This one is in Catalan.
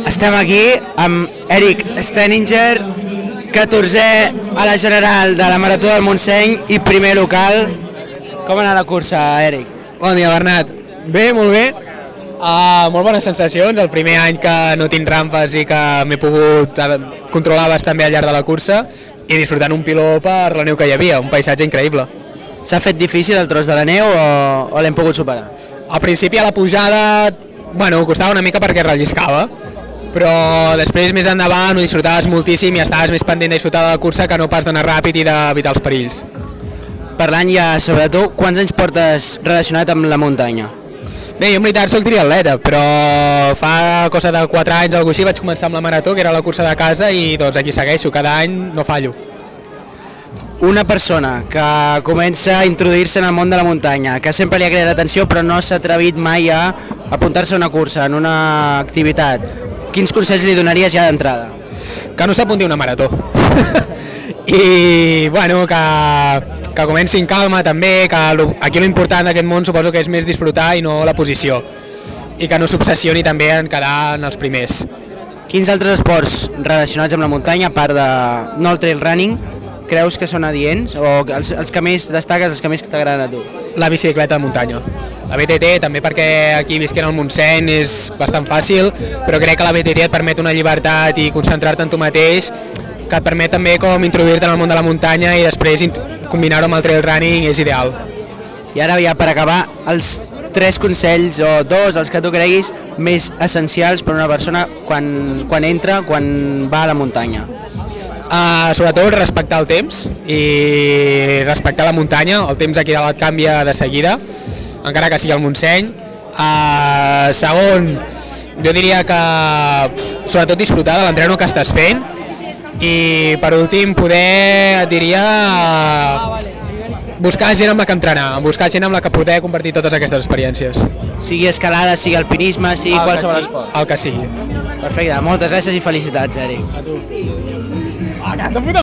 Estem aquí amb Eric Steninger, 14è a la general de la Marató del Montseny i primer local. Com ha anat la cursa, Eric? Bon dia, Bernat. Bé, molt bé. Molt bones sensacions, el primer any que no tinc rampes i que m'he pogut controlar bastant bé al llarg de la cursa i disfrutant un piló per la neu que hi havia, un paisatge increïble. S'ha fet difícil el tros de la neu o l'hem pogut superar? Al principi a la pujada, costava una mica perquè relliscava, però després més endavant ho disfrutaves moltíssim i estaves més pendent de disfrutar de la cursa que no pas d'anar ràpid i d'evitar els perills. Parlant ja sobre tu, quants anys portes relacionat amb la muntanya? Bé, jo en veritat soc triatleta, però fa cosa de 4 anys o alguna cosa així vaig començar amb la marató, que era la cursa de casa, i doncs aquí segueixo, cada any no fallo. Una persona que comença a introduir-se en el món de la muntanya, que sempre li ha cridat l'atenció però no s'ha atrevit mai a apuntar-se a una cursa, en una activitat, quins consells li donaries ja d'entrada? Que no s'apunti a una marató. I que comenci en calma també, que aquí l'important d'aquest món suposo que és més disfrutar i no la posició, i que no s'obsessioni també en quedar en els primers. Quins altres esports relacionats amb la muntanya, a part de no el trail running, creus que són adients o els que més destaques, els que més t'agraden a tu? La bicicleta de muntanya. La BTT també perquè aquí visquent al Montseny és bastant fàcil, però crec que la BTT et permet una llibertat i concentrar-te en tu mateix, que et permet també com introduir-te en el món de la muntanya i després combinar-ho amb el trail running és ideal. I ara ja per acabar, els 3 consells o 2, els que tu creguis, més essencials per a una persona quan va a la muntanya. Sobretot respectar el temps i respectar la muntanya, el temps aquí dalt canvia de seguida, encara que sigui al Montseny. Segon, jo diria que sobretot disfrutar de l'entreno que estàs fent, i per últim et diria buscar gent amb la que entrenar, buscar gent amb la que poder compartir totes aquestes experiències. Sigui escalada, sigui alpinisme, sigui qualsevol esport. El que sigui. Perfecte, moltes gràcies i felicitats, Eric. A tu.